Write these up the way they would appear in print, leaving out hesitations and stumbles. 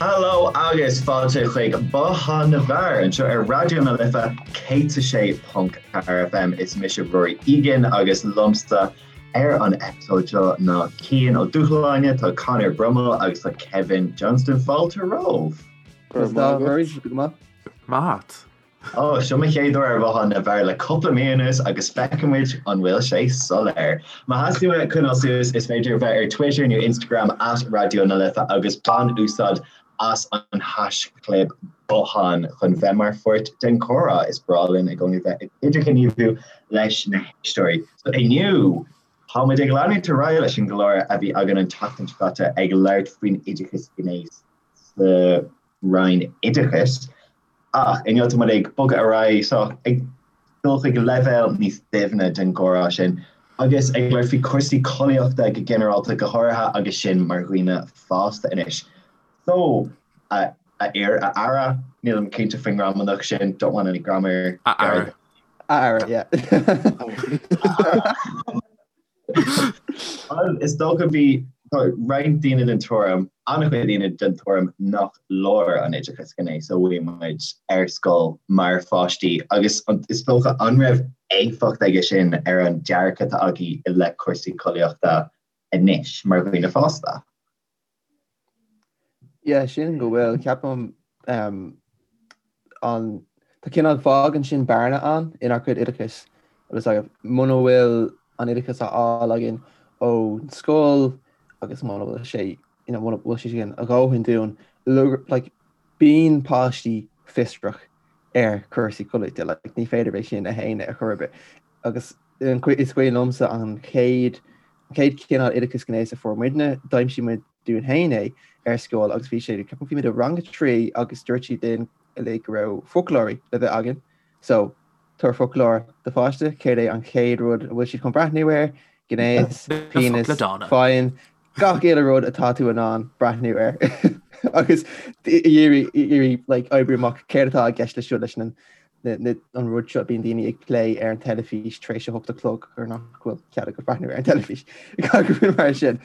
Hello agus fáilte chuig Bothán na bhFear anseo ar Raidió na Life 106.4 FM. Is mise Rory Egan agus liomsa ar an eipeasóid seo ná Cian Ó Dúshláine, tá Conor Brummel agus tá Kevin Johnston. Fáilte romhaibh. Go raibh maith agat. Go maith. Maith. Ó, seo mo chéad uair ar Bhothán na bhFear le cúpla mí anuas agus feicfidh muid an bhfuil sé soiléir. Má theastaíonn uait coinneáil suas, is féidir bheith ar Twitter nó Instagram at Raidió na Life agus bain úsáid as an haischlib Bothán chun bheith mar pháirt den chomhrá. Is breá linn i gcónaí bheith ag idirghníomhú leis na héisteoirí. So inniu, tá muid ag leanúint ar aghaidh leis an gclár a bhí againn an tseachtain seo caite ag labhairt faoin oideachas gnéis sa Roinn Oideachais. Ach inniu tá muid ag bogadh ar aghaidh, so ag dul chuig leibhéal níos doimhne den gcomhrá sin agus ag labhairt faoi chúrsaí collaíochta go ginearálta, go háirithe agus sinn mar dhaoine fásta anois. So, a fhir, a fheara, nílim cinnte faoin ngramadach sin, don't want any grammar. A fheara. A fheara, yeah. Is dócha bhí roinnt daoine den tuairim, an-chuid daoine den tuairim nach leor an oideachas gnéis a bhfuair muid ar scoil mar pháistí agus is dócha an raibh éifeacht aige sin ar an dearcadh atá agaibh i leith cúrsaí collaíochta anois mar dhaoine fásta? Yeah, sin go bhfuil, ceapaim um, an tá cineál fágann sin bearna ann inár gcuid oideachais agus like, muna bhfuil an oideachas á fháil againn ón scoil agus muna bhfuil sé you know, muna bhfuil sé sin a dhóthain dúinn like, bíonn páistí fiosrach ar chúrsaí collaíochta like, ní féidir é sin a shéanadh ar chor ar bith agus is cuimhin liomsa an chéad an chéad chineál oideachas gnéis a fuair muidne, d'aimsigh muid dúinn féin é ar scoil agus bhí sé, ceapaim bhí muid i rang a 3 agus dúirt siad linn uilig go raibh foclóirí le bheith againn. So, tabhair foclóir do pháiste, céard é an chéad rud a bhfuil siad chun breathnú air? Gnéas, penis, faighin, gach uile rud atá tú in ann breathnú air. Agus iarraidh like, oibriú amach céard atá i gceist leis seo leis an an rud seo bíonn daoine ag plé ar an teilifís tar éis a hocht a chlog gur nach bhfuil cead agat breathnú ar an teilifís gach rud mar sin.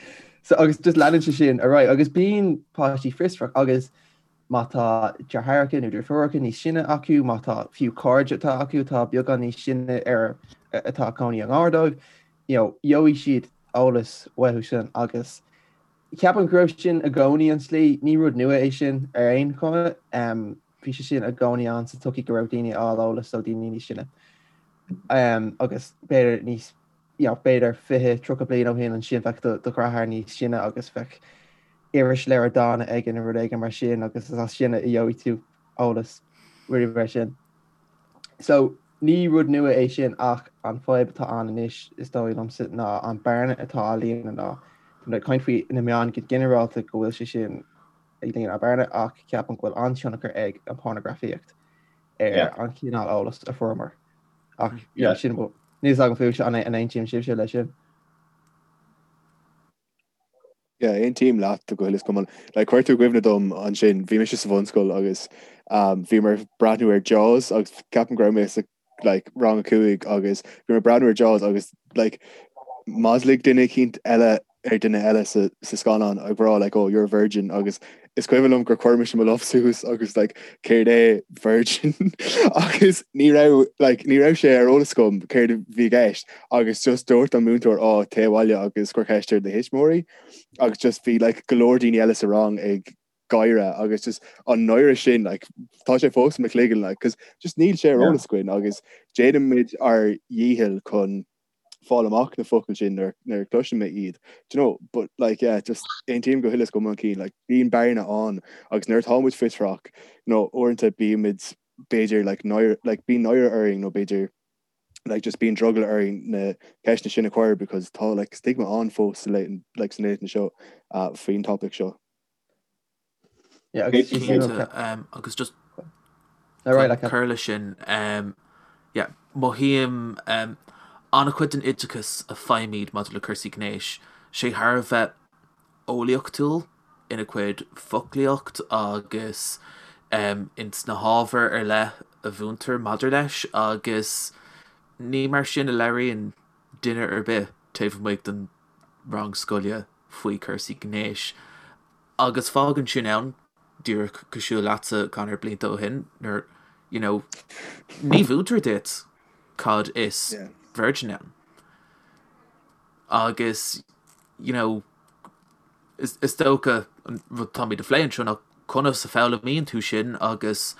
So agus just leanann sé sin ar aghaidh agus bíonn páistí fiosrach agus má tá deartháireacha nó deirfiúracha níos sine acu, má tá fiú cairde atá acu atá beagán níos sine ar atá ag cónaí i ngar dóibh, you know, gheobhaidh siad eolas uathu sin agus ceapaim go raibh sin i gcónaí an tslí, ní rud nua é sin ar aon chuma. Um, bhí sé sin i gcónaí ann sa tsochaí go raibh daoine ag fháil eolas ó daoine níos sine. Um, agus b'fhéidir níos you know, b'fhéidir 20, 30 bliain ó shin ansin bheadh do, do dheartháir níos sine agus bheadh irisleabhar dána aige nó rud éigin mar sin agus is as sin a gheobhaidh tú eolas rudaí mar sin. So ní rud nua é sin ach an fadhb atá ann anois is dóigh liomsa ná an bearna atá á líonadh ná tá ag caint faoi na meáin go ginearálta go bhfuil sé sin ag líonadh bearna ach ceapaim go bhfuil an-tionchar ag an pornagrafaíocht ar an chineál eolas a fuaireamar. Ach yeah, sin níl a fhios agam fúibhse an aontaíonn sibhse leis sin. Yeah, aontaím leat go huile is go hiomlán. Like, chuir tú i gcuimhne dom ansin, bhí mise sa bhunscoil agus um, bhíomar ag breathnú ar Jaws agus ceapaim go raibh mé sa like, rang a cúig agus bhíomar ag breathnú ar Jaws agus like, mhaslaigh duine eicínt eile ar duine eile sa, sa scannán ag rá like, oh, you're a virgin agus is cuimhin liom gur chuir mise mo lámh suas agus like, céard é virgin agus ní raibh like, ní raibh sé ar eolas agam céard a bhí i gceist agus just dúirt an múinteoir á téigh abhaile agus cuir ceist ar do thuismitheoirí agus just bhí like, go leor daoine eile sa rang ag gáire agus just an náire sin like, tá sé fós i mo chloigeann like, 'cause just níl sé ar eolas againn agus déanaimid ár dhícheall chun fáil amach na focail sin nuair nuair a chloiseann mé iad do you know but like yeah just aontaím go huile is go hiomlán Cian like bíonn bearna ann agus nuair atá muid fiosrach you know uaireanta bímid b'fhéidir like náire like bíonn náire orainn nó b'fhéidir like just bíonn drogall orainn na ceisteanna sin a chur because tá like stigma ann fós sa laethanta like sna laethanta seo uh, faoin topic seo. Yeah, agus Cinnte, sin um, agus just All right, like, cur leis sin, um, yeah, mothaím um, an-chuid den oideachas a faighimid maidir le cúrsaí gnéis, sé thar a bheith eolaíochtúil ina chuid foclaíocht agus um, ins na hábhair ar leith a mhúintear maidir leis agus ní mar sin a labhraíonn duine ar bith taobh amuigh den rang scoile faoi chúrsaí gnéis. Agus fágann sin ann. Díreach cosúil leatsa Conor blianta ó shin nuair you know ní mhúintear duit cad is virgin ann. Agus you know is is dócha an rud táimid a phlé anseo ná conas a foghlaimíonn tú sin agus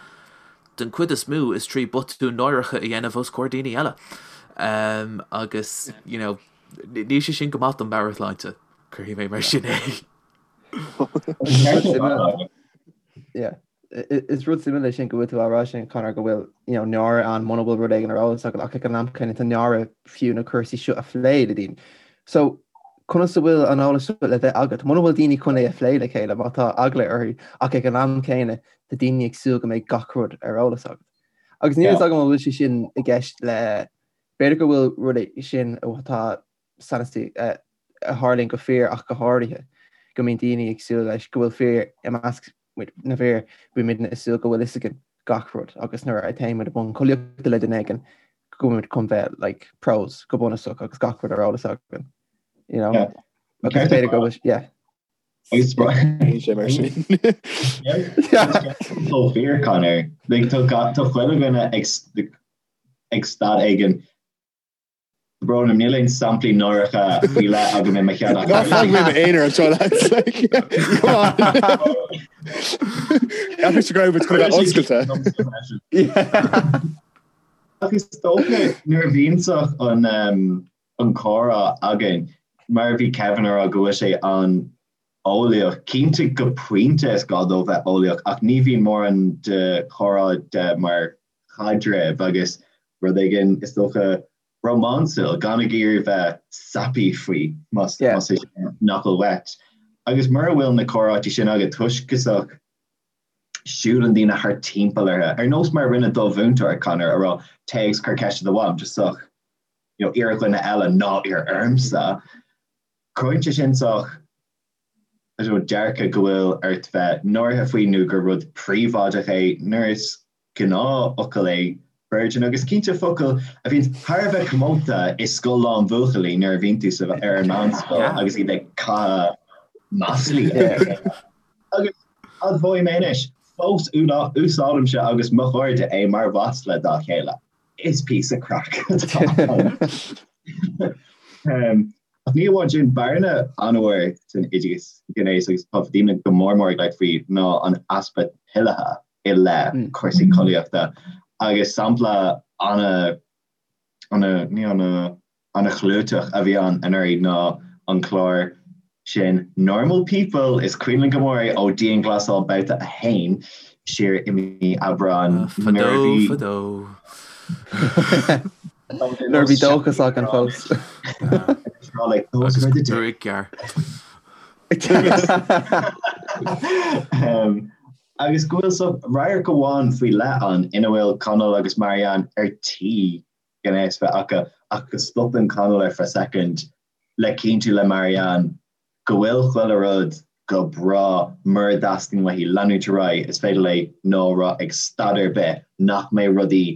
den chuid is mó is trí botúin náireacha a dhéanamh os comhair daoine eile. Um, agus you know níl sé sin go maith don meabhairshláinte, cuirfidh mé mar sin é. Is rud suimiúil é sin go bhfuil tú á rá sin Conor go bhfuil you know, náire ann muna bhfuil rud éigin ar eolas agat ach ag an am céanna tá náire fiú na cúrsaí seo a phlé le daoine. So conas a bhfuil an eolas seo le bheith agat? Muna bhfuil daoine chun é a phlé le chéile má tá eagla orthu ach ag an am céanna tá daoine ag súil go mbeidh gach rud ar eolas agat. Agus níl a fhios agam an bhfuil sé sin i gceist le b'fhéidir go bhfuil rud é sin atá san a tharlaíonn go fíor ach go háirithe, go mbíonn daoine ag súil leis go bhfuil fir i measc na bhfir, bíonn muidne ag súil go bhfuil fhios againn gach rud agus nuair a théann muid i mbun collaíochta le duine éigin go bhfuil muid chun bheith like pros go bunúsach agus gach rud ar eolas againn, you know? Yeah. Agus b'fhéidir go bhfuil, yeah. Agus sé mar sin. Chomh fíor Conor, like tá tá chuile dhuine ag ag staid éigin Brón orm, níl aon samplaí náireacha faoi leith agam i mo cheann ach. Ná fág mé i m'aonar anseo lads. Come on. Ceapaim go raibh muid chun a bheith oscailte. Ach is dócha nuair a bhíonn an an comhrá againn, mar a bhí Kevin a rá go bhfuil sé an-eolaíoch, cinnte go pointe is gá dó bheith eolaíoch ach ní bhíonn mórán de chomhrá de mar chaidreamh agus rud éigin, is dócha, rómánsúil, gan ag iarraidh bheith sappy faoi, más é sin nach bhfuil uait. Agus mura bhfuil na comhráití sin agat, toisc go sách siúlann daoine thart timpeall orthu, ar nós mar a rinne do mhúinteoir, Conor, a rá, téigh agus cuir ceist ar do mham, just sách, you know, iarr ar dhuine eile, ná iarr ormsa. Cruthaíonn sé sin sách, I don't know, dearcadh go bhfuil ort bheith náirithe faoi nó gur rud príobháideach é, nuair is gnáthfhocal é virgin agus cinnte focal a bhíonn thar a bheith comónta i scoil lán bhuachaillí nuair a bhíonn tú sa ar an meánscoil agus iad ag caitheamh maslaí Agus admhóidh mé anois, fós úsáidimse agus mo chairde é mar mhasla dá chéile. Is píosa craic atá ann. Ach ní amháin sin, bearna an-mhór san oideachas gnéis agus tá daoine go mór mór ag labhairt faoi ná an easpa toilithe. i leith cúrsaí collaíochta agus sampla ana, ana, ní ana, ana chlúiteach a bhí ann anuraidh ná an clár sin Normal People, is cuimhin linn go mór é ó Dianghlasáil Babhta 1 siar i mí Aibreáin nuair a bhí. Fadó, fadó. Nuair a bhí dóchas againn fós. Agus gruaig ghearr. Agus go bhfuil so radharc amháin faoi leith ann ina bhfuil Conall agus Marianne ar tí gnéas bheith acu ach go stopann Conall ar feadh soicind le cinntiú le Marianne go bhfuil chuile rud go breá mura dteastaíonn uaithi leanúint ar aghaidh is féidir léi no a rá ag staid ar bith nach mbeidh rudaí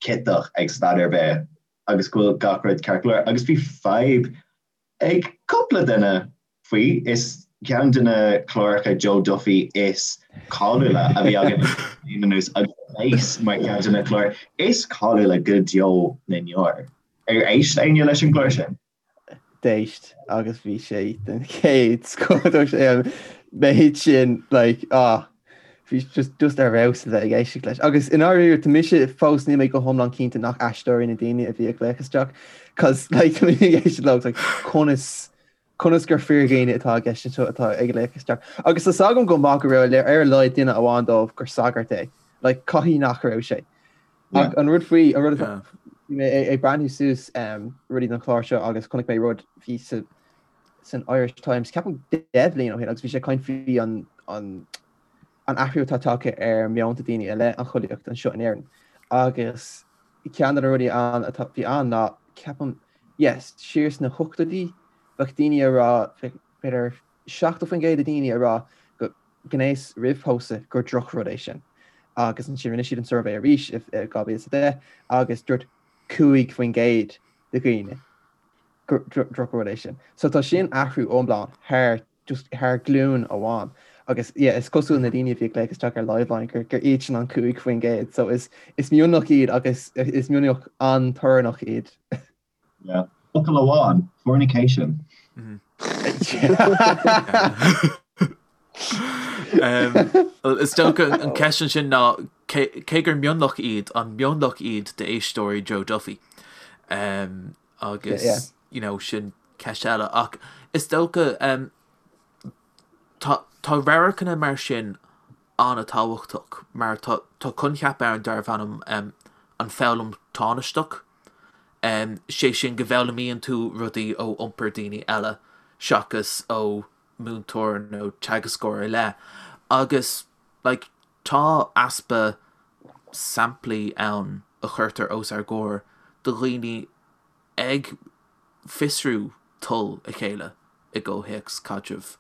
ciotach ag staid ar bith agus go bhfuil gach rud ceart go leor agus bhí fadhb ag cúpla duine faoi. Is ceann de na cláracha Joe Duffy is cáiliúla a bhí againn bliain anuas agus a bheas mar cheann de na cláir is cáiliúla go deo na ndeor. Ar éist éinne leis an gclár sin? D'éist agus bhí sé den chéad scoth. Dúirt sé an méid sin like ah bhí just just ar fheabhas a bheith ag éisteacht leis. Agus i ndáiríre tá mise fós níl mé go hiomlán cinnte nach aisteoirí na daoine a bhí ag glaoch isteach cos like tá mé ag éisteacht leo like conas conas gur fíordhaoine atá i gceist anseo atá ag glaoch isteach. Agus tá 's agam go maith go raibh ar a laghad duine amháin dóibh gur sagart é. Like caithfidh nach raibh sé. Ach an rud faoi an rud atá bhí mé ag breathnú suas um, rudaí don chlár seo agus chonaic mé rud bhí sa san Irish Times, ceapaim 10 bhliain ó shin agus bhí sé ag caint faoi an an an athrú atá tagtha ar meonta daoine i leith an chollaíocht anseo in Éirinn. Agus ceann de na rudaí ann atá bhí ann ná ceapaim yes, siar sna hochtóidí bheadh daoine ag rá b'fhéidir 70% de daoine ag rá go gnéas roimh pósadh gur drochrud é sin. Agus ansin rinne siad an suirbhé arís i 2010 agus dúirt 5% de dhaoine gur drochrud é sin. So tá sin athrú iomlán thar just thar glúin amháin. Agus yeah, is cosúil na daoine a bhí ag glaoch isteach ar Liveline gur gur iad sin an 5%, so is is mionlach iad agus is mionlach an-torannach iad. Yeah. Focal amháin, fornication. Is dócha an ceist ansin ná cé gur mionlach iad, an mionlach iad d'éisteoirí Joe Duffy? Agus you know, sin ceist eile. Ach is dócha tá tá radharcanna mar sin an-tábhachtach mar tá tá coincheap ann darbh ainm an foghlaim tánaisteach. Sé sin go bhfoghlaimíonn tú rudaí ó iompar daoine eile seachas ó múinteoir nó teagascóir ar leith. Agus like tá easpa samplaí ann a chuirtear os ár gcomhair de dhaoine ag fiosrú toil a chéile i gcomhthéacs caidrimh.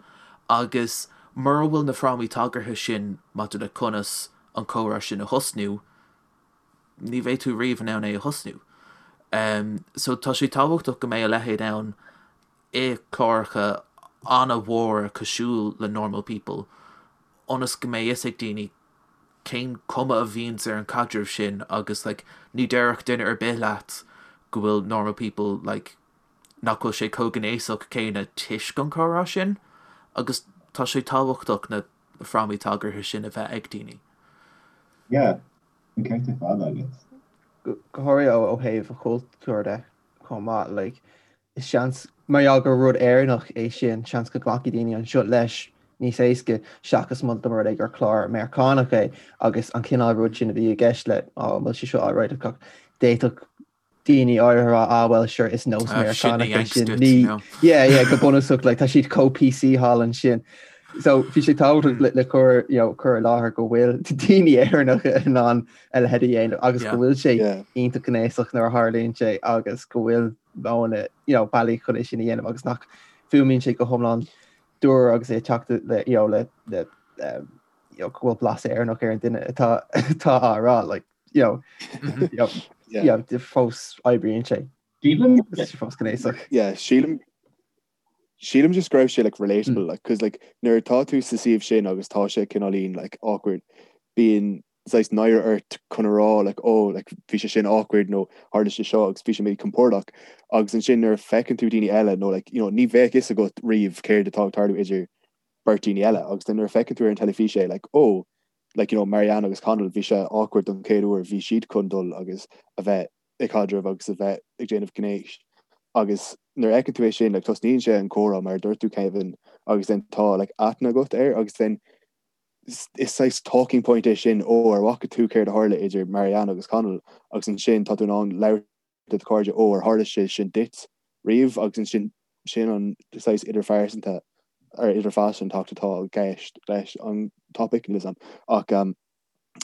Agus mura bhfuil na frámaí tagartha sin maidir le conas an comhrá sin a thosnú, ní bheidh tú riamh in ann é a thosnú. So tá sé tábhachtach go mbeidh a leithéid ann i cláracha an-mhóra cosúil le Normal People ionas go mbeidh fhios ag daoine cén cuma a bhíonns ar an caidreamh sin agus like ní déarfadh duine ar bith leat go bhfuil Normal People like nach bhfuil sé chomh gnéasach céanna toisc an comhrá sin agus tá sé tábhachtach na frámaí tagartha sin a bheith ag daoine. Yeah, an ceart ar fad agat. Go háirithe ó thaobh an chultúir de chomh maith, like, is seans, mar gheall gur rud Éireannach é sin, seans go nglacfaidh daoine anseo leis níos éasca seachas má dá mba rud é gur clár Meiriceánach é agus an cineál rud sin a bhí i gceist le, oh, an bhfuil sé seo alright, d'fhéadfadh daoine áirithe a rá, ah well sure is nós ah, Meiriceánach é sin. Ní, yeah, yeah, go bunúsach, like, tá siad chomh PC thall ansin. So bhí sé tábhachtach le, le cur, you know, cur i láthair go bhfuil daoine Éireannacha in ann a leithéid a dhéanamh agus go bhfuil sé iontach gnéasach nuair a tharlaíonn sé agus go bhfuil modhanna, you know, bealaí chun é sin a dhéanamh agus nach bhfuaimníonn sé go hiomlán dúr agus é ag teacht le, you know, le, le um, you know, go bhfuil blas Éireannach ar an duine atá atá á rá, like, you know, you know, yeah. you know, fós oibríonn sé. Sílim sé fós gnéasach. Yeah, sílim sílim just go raibh sé like relatable mm. like cause like nuair atá tú sa suíomh sin agus tá sé cineáilín like awkward bíonn saghas náire ort chun a rá like oh like bhí sé sin awkward nó tharla sé seo agus bhí sé míchompordach agus ansin nuair a feiceann tú daoine eile nó like you know ní bheadh fhios agat riamh céard atá ag tarlú idir beirt daoine eile agus then nuair a feiceann tú ar an teilifís é like oh like you know Marianne agus Connell bhí sé awkward don chéad uair bhí siad chun dul agus a bheith ag caidreamh agus a bheith ag déanamh gnéis agus nuair a fheiceann tú é sin like tosnaíonn sé an comhrá mar a dúirt tú Kevin agus then tá like aithne agat air agus then is saghas talking point é sin ó ar bhfaca tú céard a tharla idir Marianne agus Connell agus ansin tá tú in ann labhairt le do chairde ó ar tharla sé sin duit riamh agus ansin sin an saghas idirphearsanta ar idirphearsantacht atá i gceist leis an topic níl 'fhios a'm ach um,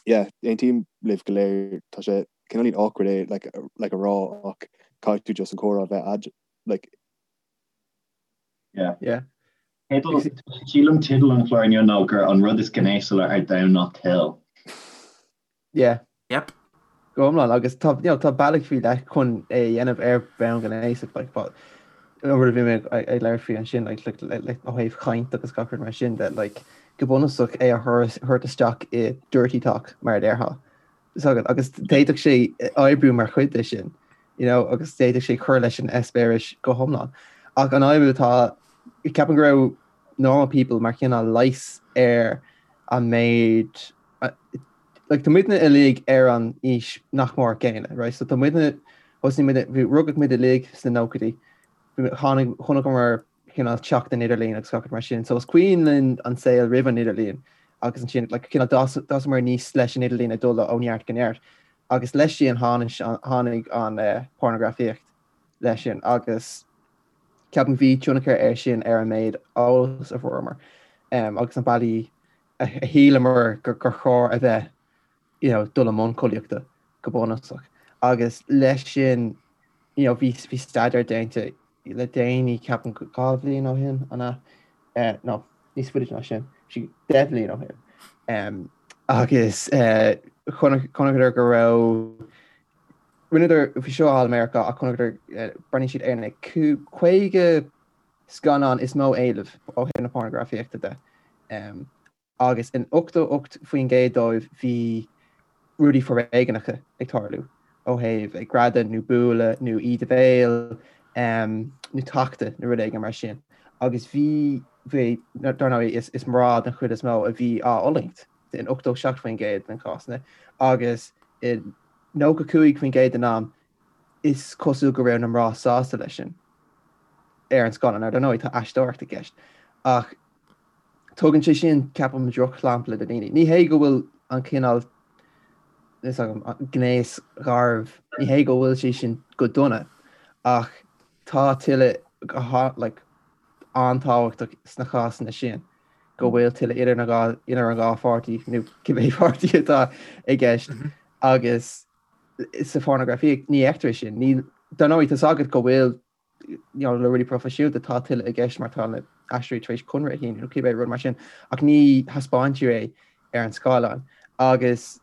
yeah, aontaím libh go léir tá sé cineáilín awkward é like, like a rá ach caithfidh tú just an comhrá a bheith a'd like Yeah. Yeah. Sílim teideal an chláir inniu ná gur an rud is gnéasúla ar domhan ná toil. Yeah. Yep. Go hiomlán agus tá you know, tá bealaí faoi leith chun é a dhéanamh ar bhonn gnéasach like, but an rud a bhí mé ag labhairt faoi ansin like, like, like, like, ó thaobh chaint agus gach rud mar sin de like, go bunúsach é a thabhairt isteach i dirty talk mar a déarfá. So, agus d'fhéadfadh sé oibriú mar chuid de sin, you know, agus d'fhéadfadh sé cur leis an eispéireas go hiomlán. Ach an fhadhb atá, ceapaim go raibh normal people mar chineál leigheas ar an méid like tá muidne uilig ar an aois nach mór céanna, right? So tá muidne, thosaigh muid, bhí, rugadh muid uilig sna nóchaidí, tháinig, chonaiceamar cineál teacht an idirlín agus gach rud mar sin. So is cuimhin linn an saol roimh an idirlíon agus ansin like cineál d'fhásamar aníos leis an idirlíon ag dul ó neart go neart. Agus leis sin tháinig, tháinig an eh, pornagrafaíocht leis sin agus ceapaim bhí tionchar air sin ar an méid eolas a fuaireamar um, agus na bealaí a shíleamar gur chóir a bheith you know, dul i mbun collaíochta go bunúsach. Agus leis sin you know, bhí, bhí staidéar déanta le déanaí ceapaim 2 bhliain ó shin, an ea? Eh, no, níos faide ná sin, sí 10 bhliain ó shin. Um, agus eh, chonaiceadar go raibh rinneadar bhí seo i Meiriceá ach chonaiceadar eh, breathnaigh siad ar na 50 scannán is mó éileamh ó thaobh na pornagrafaíochta de. Agus in 88% dóibh bhí rudaí foréigneacha ag tarlú, ó thaobh ag greadadh nó bualadh nó íde béil nó tachtadh nó rud éigin mar sin. Agus bhí, bhí, dar ndóigh, is, is mná den chuid is mó a bhí á fhulaingt in 87% den chásanna agus i 95% den am is cosúil go raibh na mná sásta leis sin ar an scáileán. Now, dar ndóigh, tá aisteoireacht i gceist ach Tugann sé sin, ceapaim, drochshampla do dhaoine. Ní hé go bhfuil an cineál is agam gnéas garbh, ní hé go bhfuil sé sin go dona, ach tá tuilleadh go like, an-tábhachtach sna cásanna sin go bhfuil tuilleadh idir na dhá idir an dhá pháirtí nó cibé páirtí atá i gceist mhm. agus sa phornagrafaíocht ní fheictear sin. Ní dar ndóigh tá agat go bhfuil you know, le rudaí proifisiúnta tá tuilleadh i gceist mar tá na haisteoirí tar éis conradh a shíniú nó cibé rud mar sin ach ní thaispeáintear é ar an scáileán agus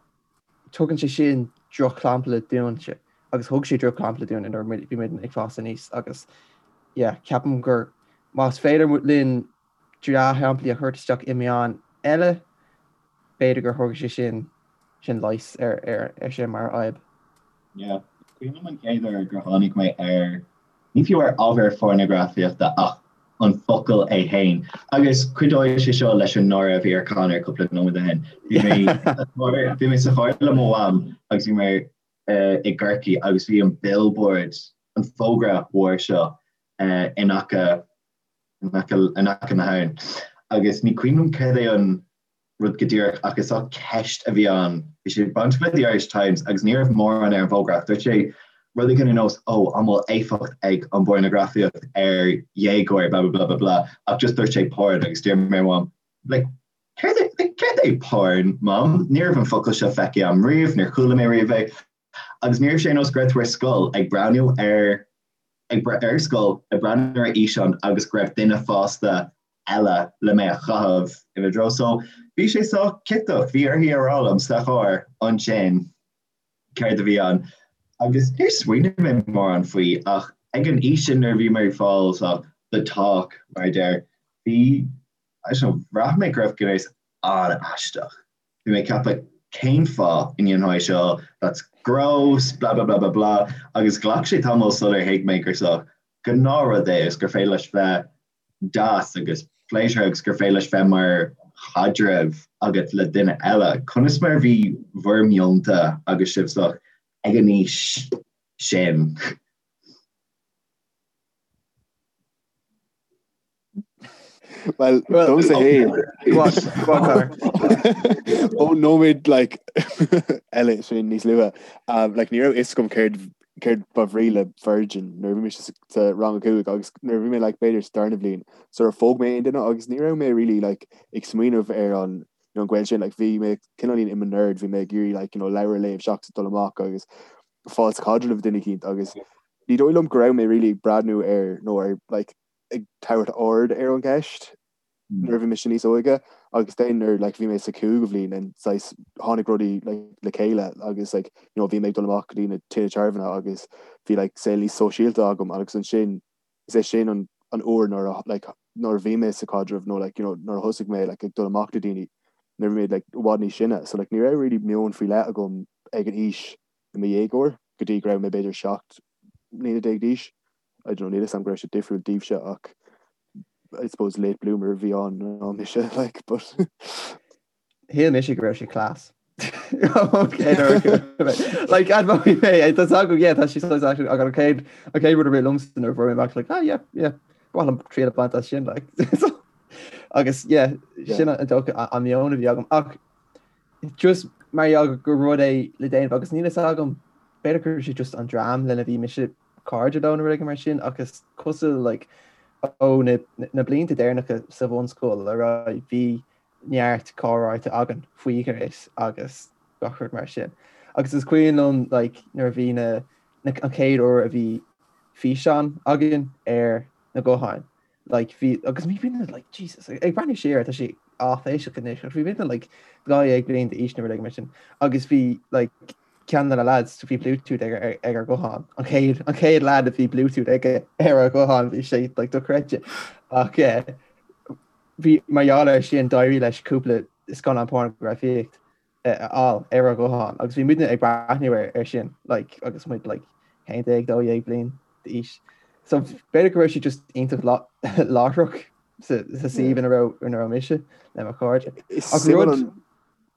tugann sé sin drochshampla dúinne agus thug sé drochshampla dúinn nuair a bhí muid ag fás aníos agus yeah, ceapaim gur más féidir linn dea-shamplaí a thabhairt isteach i meáin eile, b'fhéidir gur thug sé sin sin leigheas ar ar ar sin mar fhadhb. Yeah. Cuimhin liom an chéad uair gur tháinig mé ar, ní fiú ar ábhar phornagrafaíochta ach an focal é féin. Agus cuideoidh sé seo leis an náire a bhí ar Conor cúpla nóiméad ó shin. Bhí mé bhí mé sa charr le mo mham agus bhí mé i gCorcaigh agus bhí an billboard, an fógra mhór seo in aice in aice na habhann. Agus ní cuimhin liom céard é an rud go díreach ach is ea ceist a bhí ann. Bhí sé bainteach le The Irish Times agus ní raibh mórán ar an bhfógra ach dúirt sé rud éigin ar nós 'Ó, an bhfuil éifeacht ag an bpornagrafaíocht ar dhéagóir blah blah blah blah blah ach just dúirt sé porn agus d'iarr mé ar Mham like céard é like céard é porn, Mom? Ní raibh an focal seo feicthe agam riamh, níor chuala mé riamh é agus ní raibh sé ar nós go raibh tú ar scoil ag breathnú ar ag ar scoil ag breathnú ar fhíseán agus go raibh duine fásta eile le mé a chaitheamh ina dtreo. So bhí sé sách ciotach, bhí uirthi a rá liom sa charr ansin céard a bhí ann. Agus níor smaoinigh mé mórán faoi ach ag an aois sin nuair a bhí mé ag fáil so the talk mar a deir, bhí, I don't know, bhraith mé go raibh gnéas an-aisteach. Bhí mé ag ceapadh cén fáth a ndéanfá é seo, that's gross, blah blah blah blah blah agus ghlac sé tamall sular thuig mé gur sách gnáthrud é agus gur féidir leis bheith deas agus pléisiúrtha agus gur féidir leis bheith mar chaidreamh agat le duine eile. Conas mar a bhí bhur meonta agus sibh sách ag an aois sin? Well, domsa féin. Ó nóiméad like eile sin níos luaithe. Um, like ní raibh fhios agam céard céard ba bhrí le virgin nuair a bhí mé sa rang a cúig agus nuair a bhí mé like b'fhéidir sa darna bhliain sar ar phóg mé aon duine agus ní raibh mé really like ag smaoineamh ar an you know, an gaol sin like bhí mé cineáilín i mo nerd bhí mé ag iarraidh like you know leabhar a léamh seachas dul amach agus fáil sa chaidreamh le duine eicínt agus ní dóigh liom go raibh mé really ag breathnú ar nó ar like ag tabhairt aird ar an gceist nuair a bhí mise níos óige agus then nuair like bhí mé sa cúigiú bhliain and saghas tháinig rudaí like le chéile agus like you know bhí mé ag dul amach go dtí na tithe tábhairne agus bhí like saol níos sóisialta agam agus ansin is é sin an an uair nuair a like nuair a bhí mé sa chaidreamh nó like you know nuair a thosaigh mé like ag dul amach le daoine nuair a bhí mé like i bhfad níos sine so like ní raibh really meon faoi leith agam ag an aois i mo dhéagóir go dtí go raibh mé b'fhéidir 17 mbliana d'aois. I don't know, níl 'fhios a'm go raibh sé difriúil daoibhse ach I suppose late bloomer a bhí ann ná mise like but Shíl mise go raibh sé class. Like admhóidh mé é tá agam yeah tá sé saghas actually ach an chéad an chéad rud a rith liomsa nuair a fuair mé amach like ah yeah yeah ba mhaith liom triail a bhaint as sin like agus yeah sin an dócha an meon a bhí agam ach just mar gheall gur rud é le déanamh agus níl fhios agam b'fhéidir gur sé just an dream lena bhí mise cairde leo nó rud éigin mar sin ach is cosúil like ó na na blianta deireanacha sa bhunscoil ar aghaidh bhí neart comhráite againn faoi ghnéas agus gach rud mar sin. Agus is cuimhin liom like nuair a bhí na na an chéad uair a bhí físeán againn ar na gutháin like bhí agus bhí muidne like Jesus ag breathnú siar tá sé áiféiseach anois ach bhí muidne like 12 bliain d'aois nó rud éigin mar sin agus bhí like ceann de na lads bhí Bluetooth ag ag ar ghuthán an chéad an chéad lad a bhí Bluetooth aige ar a ghuthán bhí sé like dochreidte ach eh, bhí mar gheall air sin d'éirigh leis cúpla. scannán pornagrafaíocht a fháil ar ár ghuthán agus bhí muidne ag breathnú ar sin like agus muid like 11, 12 bliain d'aois. So b'fhéidir go raibh sé just iontach láithreach sa suíomh ina raibh ina raibh mise le mo chairde. Ach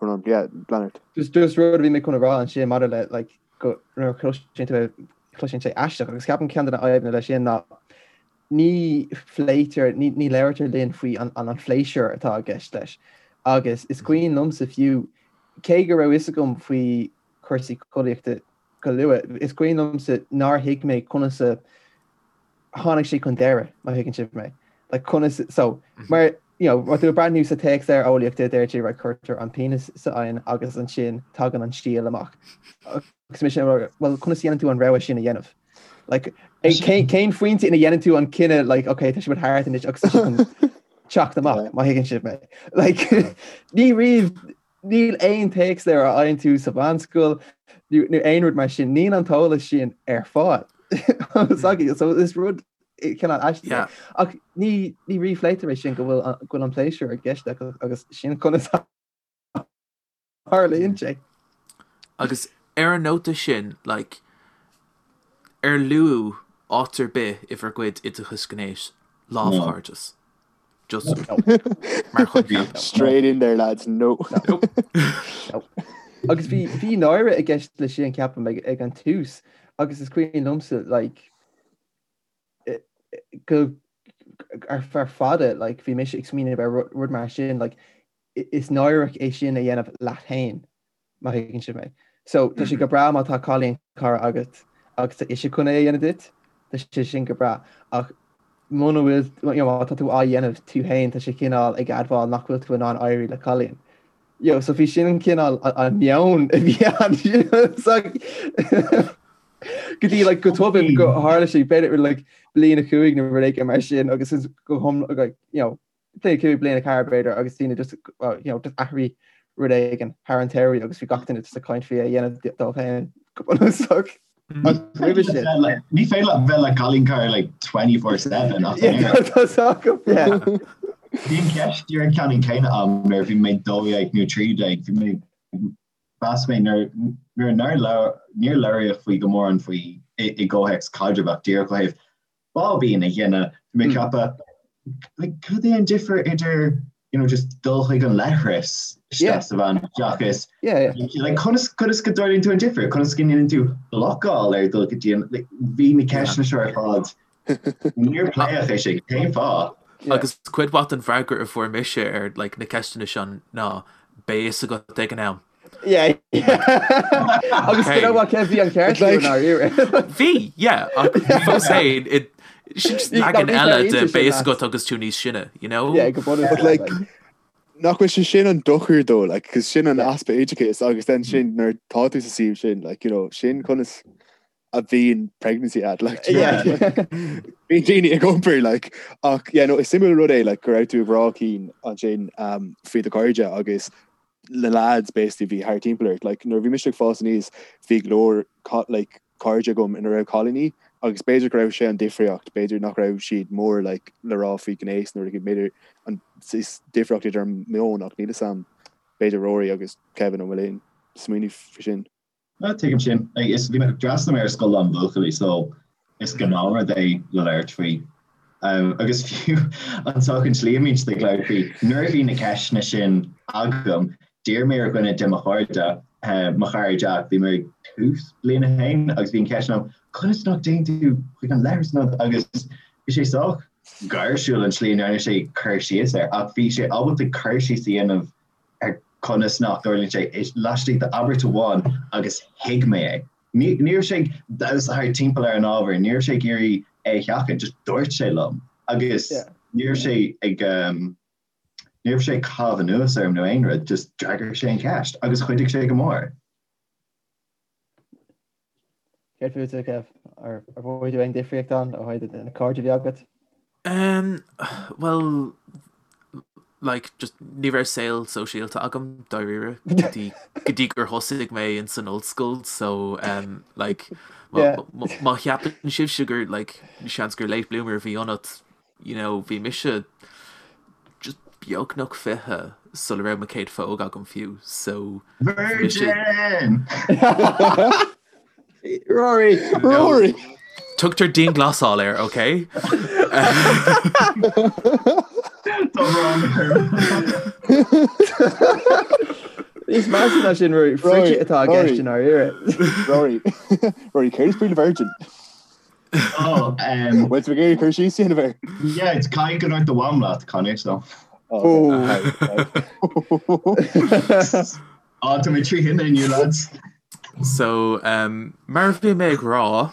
rud yeah, Leonard. Just just rud a bhí mé chun a rá ansin maidir le like go nuair a chloiseann tú cloiseann sé aisteach agus ceapaim ceann de na fadhbanna leis sin ná ní phléitear, ní labhraítear linn faoi an an phléisiúr atá i gceist leis. Agus is cuimhin liomsa fiú, cé go raibh fhios agam faoi chúrsaí collaíochta go luath, is cuimhin liomsa nár thuig mé conas a tháinig sé chun deireadh, má thuigeann sibh mé. Like conas, so, mar, you know, má tú ag breathnú sa téacsleabhar eolaíochta, deir sé, right, cuirtear an penis sa oigheann agus ansin tagann an stiall amach. Agus mise, well, conas a dhéanann tú an rogha sin a dhéanamh? Like, cén phointe ina dhéanann tú an cinneadh, like, okay, tá sé thart anois agus tá sé chun teacht amach, má thuigeann sibh mé. Like, ní riamh, níl aon téacsleabhar a fhaigheann tú sa mheánscoil nó aon rud mar sin, níl an t-eolas sin ar fáil. So is rud cineál aisteach. Yeah. Ach ní ní ríphléitear é sin go bhfuil go bhfuil an pléisiúr i gceist agus sin conas a tharlaíonn sé. Agus ar an nóta sin, like, ar luadh áit ar bith i bhur gcuid oideachais gnéis lámhchairdeas? Just mar choincheap. Straight in there lads, no. Nope. Agus bhí bhí náire i gceist le sin ceapaim ag ag an tús agus is cuimhin liomsa like go ar feadh fada like bhí mise ag smaoineamh ar rud mar sin like is náireach é sin a dhéanamh leat féin, má thuigeann sibh mé. So tá sé go breá má tá cailín cara agat agus tá ise chun é a dhéanamh duit, tá sé sin go breá. Ach muna bhfuil, you know, má tá tú á dhéanamh tú féin, tá sé cineál ag admháil nach bhfuil tú in ann éirí le cailín. You know, so bhí sin an cineál an meon a bhí ann. So, go dtí like, go tobann go tharla sé b'fhéidir like, bliain a chúig nó rud éigin mar sin agus go hom like, you know, bliain 5, bliain 4 b'fhéidir agus daoine just well you know just athraigh rud éigin thar an tsamhraidh agus bhí gach duine just ag caint faoi a dhéanamh dóibh féin go bunúsach. Roimhe sin. Ní féidir leat bheith le cailín cara like 24/7 ach Tá acu, yeah. Bhí an ceist díreach ceannann céanna agam nuair a bhí mé 12 nó 13, bhí mé mheas mé nuair nuair nár labhair níor labhraíodh faoi go mórán faoi i i gcomhthéacs caidrimh ach díreach ó thaobh báibín a dhéanamh, bhí mé ag ceapadh, like, cad é an difear idir, you know, just dul chuig an leithreas isteach sa veain seachas, like, conas, conas go dtarlaíonn tú an difear, conas go ndéanann tú blocáil ar dul go dtí an, like, bhí na ceisteanna seo ar fad, níor pléadh é sin, cén fáth? Agus cuid mhaith den bhfreagra a fuair mise ar, like, na ceisteanna seo ná, beidh fhios agat ag an am. Yeah. Agus you know what, Kev, bhí an ceart Like- agat. Bhí, yeah, ach fós féin, it- sin just Ní- leagan ní eile bheidh de aon beidh fhios sin agat agus tú níos sine, you know? Yeah, go bunúsach, But like, like. nach bhfuil sé sin an dochar dó, like, cos sin an Yeah. easpa oideachais agus then sin nuair tá tú sa suíomh sin, like, you know, sin conas a bhíonn pregnancy agat, like, do you know Yeah. what I mean? Like, bíonn daoine ag iompar, like, ach, yeah, no, is suimiúil rud é, like, go raibh tú ag rá Cian ansin, um, faoi do chairde agus na lads basically bhí thart timpeall ort. Like, nuair a bhí mise ag fás aníos, bhí go leor like, cairde agam ina raibh cailíní agus b'fhéidir go raibh sé an difríocht, b'fhéidir nach raibh siad mór like, le rá faoi ghnéas nó rud b'fhéidir an is difríocht idir an meon ach níl fhios a'm b'fhéidir Rory agus Kevin an bhfuil aon smaoineamh faoi sin. Ah, tuigim sin. Like, is bhí mé d'fhreastail mé ar scoil lán buachaillí so is gnáthrud é le labhairt faoi. Um, agus fiú an sách an tslí a mbíonn siad ag labhairt faoi, nuair a bhí na ceisteanna sin agam, d'iarr mé ar dhuine de mo chairde, uh, mo chara Jack, bhí mé ag tús bliain a haon agus bhí an cheist agam, conas nach dtéann tú chuig an leithreas nó agus bhí sé sách gáirsiúil an tslí a ndearna sé cur síos air, ach bhí sé ábalta cur síos a dhéanamh ar conas nach dtarlaíonn sé laistigh d'abairt amháin agus thuig mé é. Ní ní raibh sé ag damhsa thart timpeall ar an ábhar, ní raibh sé ag iarraidh é a sheachaint, just dúirt sé liom agus ní raibh sé ag ní raibh sé ag caitheamh anuas orm nó aon rud, just d'fhreagair sé an cheist agus chuidigh sé go mór. Céard fútsa, Kev? Ar mhothaigh tú aon difríocht ann ó thaobh na cairde a bhí agat? Um, well, like, just ní raibh saol sóisialta agam dáiríre go dtí go dtí gur thosaigh mé in san ollscoil, so um, like, má cheapann sibhse gur like, seans gur late bloomer a bhí ionat, you know, bhí mise just beagnach 20 sula raibh mo chéad phóg agam fiú, so Virgin! Rory! Rory! Tugtar dianghlasáil air, ok? Tá brón orm. Níos measa ná sin, Rory, fritheadh atá i gceist i ndáiríre. Rory, Rory, céard is brí le virgin? Oh, um, Bhfuil tú ag iarraidh cur síos a dhéanamh air? yeah, it's caithfidh go ndúirt do mham leat, Conor, so. Oh, okay. Oh, tá mé trí thine inniu, lads. So, um, mar a bhí mé ag rá,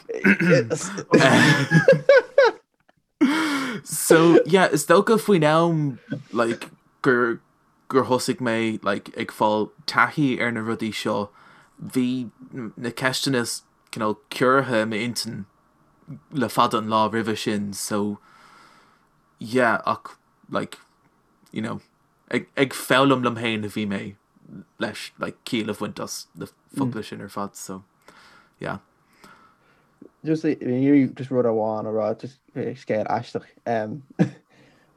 so, yeah, is dócha faoin am, like, gur, gur thosaigh mé, like, ag fáil taithí ar na rudaí seo, bhí na ceisteanna cineál ciorraithe i m'intinn le fada an lá roimhe sin, so, yeah, ach, like, you know, ag, ag foghlaim liom féin a bhí mé leis, like, ciall a bhaint as na focla sin ar fad, so, yeah. Just iarraidh just rud amháin a rá, just scéal aisteach um,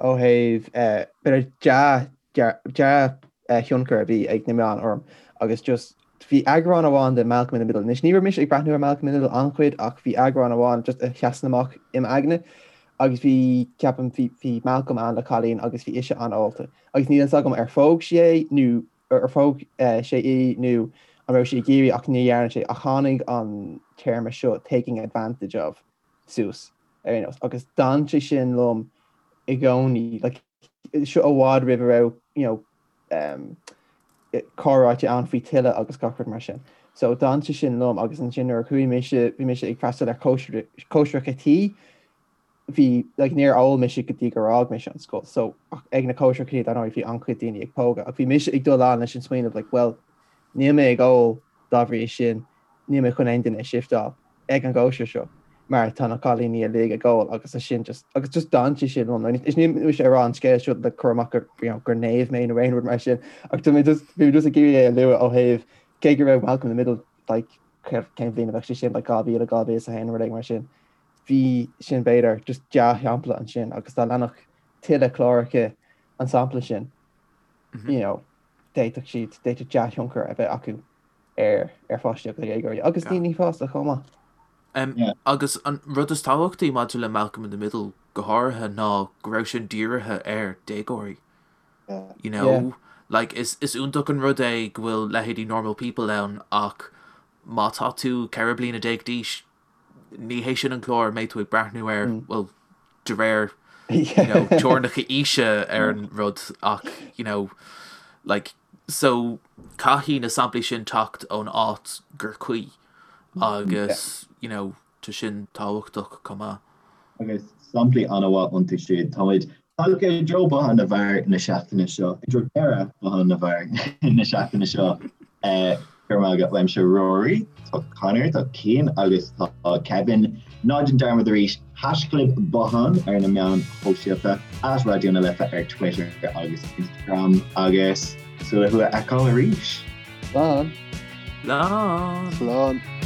ó thaobh eh, b'fhéidir dea dea-thionchar a bhí ag na meáin orm agus just bhí eagrán amháin de Malcolm in the Middle. Anois ní raibh mise ag breathnú ar Malcolm in the Middle an-chuid ach bhí eagrán amháin just a sheasann amach im aigne agus bhí, ceapaim, bhí, bhí Malcolm ann le cailín agus bhí ise an-ólta agus níl fhios agam ar phóg sí é nó ar phóg sé í nó an raibh sí ag iarraidh ach ní dhearna sé ach tháinig an téarma seo taking advantage of suas ar aon nós agus d'fhan sé sin liom i gcónaí like seo i bhfad roimh a raibh you know um, comhráite ann faoi tuilleadh agus gach rud mar sin. So d'fhan sé sin liom agus ansin nuair a chuaigh mise, bhí mise ag freastal ar cóisireacha tí, bhí, like, níor ól mise go dtí gur fhág mise an scoil. So ach ag na cóisireacha tí, dar ndóigh, bhí an-chuid daoine ag pógadh ach bhí mise ag dul ann leis an smaoineamh like, well, níl mé ag ól dá bhrí sin, níl mé chun aon duine a shifteáil ag an gcóisir seo mar tá na cailíní uilig ag ól agus é sin just agus just d'fhan sé sin liom. Is níl mise ag rá an scéal seo le cur amach gur you know, gur naomh mé nó aon rud mar sin ach tá mé just bhí mé just ag iarraidh é a lua ó thaobh cé go raibh Malcolm in the Middle like cén bhliain a bheadh sé sin like 2000 2001 rud éigin mar sin. Bhí sin b'fhéidir just dea-shampla ansin agus dá leanfadh tuilleadh cláracha an sampla sin you know, d'fhéadfadh siad d'fhéadfadh dea-thionchar a bheith acu ar ar pháistí agus ar dhéagóirí agus daoine fásta chomh maith. Um, agus an rud is tábhachtaí maidir le Malcolm in the Middle go háirithe ná go raibh sin dírithe ar déagóirí. You know, yeah. like is, is iontach an rud é go bhfuil leithéidí Normal People ann ach má tá tú 14 bliana d'aois ní hé sin an clár a mbeidh tú ag breathnú air, bhuel, de réir you know, teorainneacha aoise ar an rud ach you know, like, so caithfidh na samplaí sin teacht ón áit gur cuí agus you know, tá sin tábhachtach chomh maith. Agus samplaí an-mhaith iontu siúd. Táimid tagtha i dtreo Bothán na bhFear na seachtaine seo, i dtreo deireadh Bothán na bhFear na seachtaine seo. Go raibh maith agat uaimse Rory, tá Conor, tá Cian agus tá Kevin. Ná déan dearmad arís, haischlib Bothán ar na meáin shóisialta, at Raidió na Life ar Twitter agus Instagram agus súil le thú a fheiceáil arís. Slán. Slán. Slán.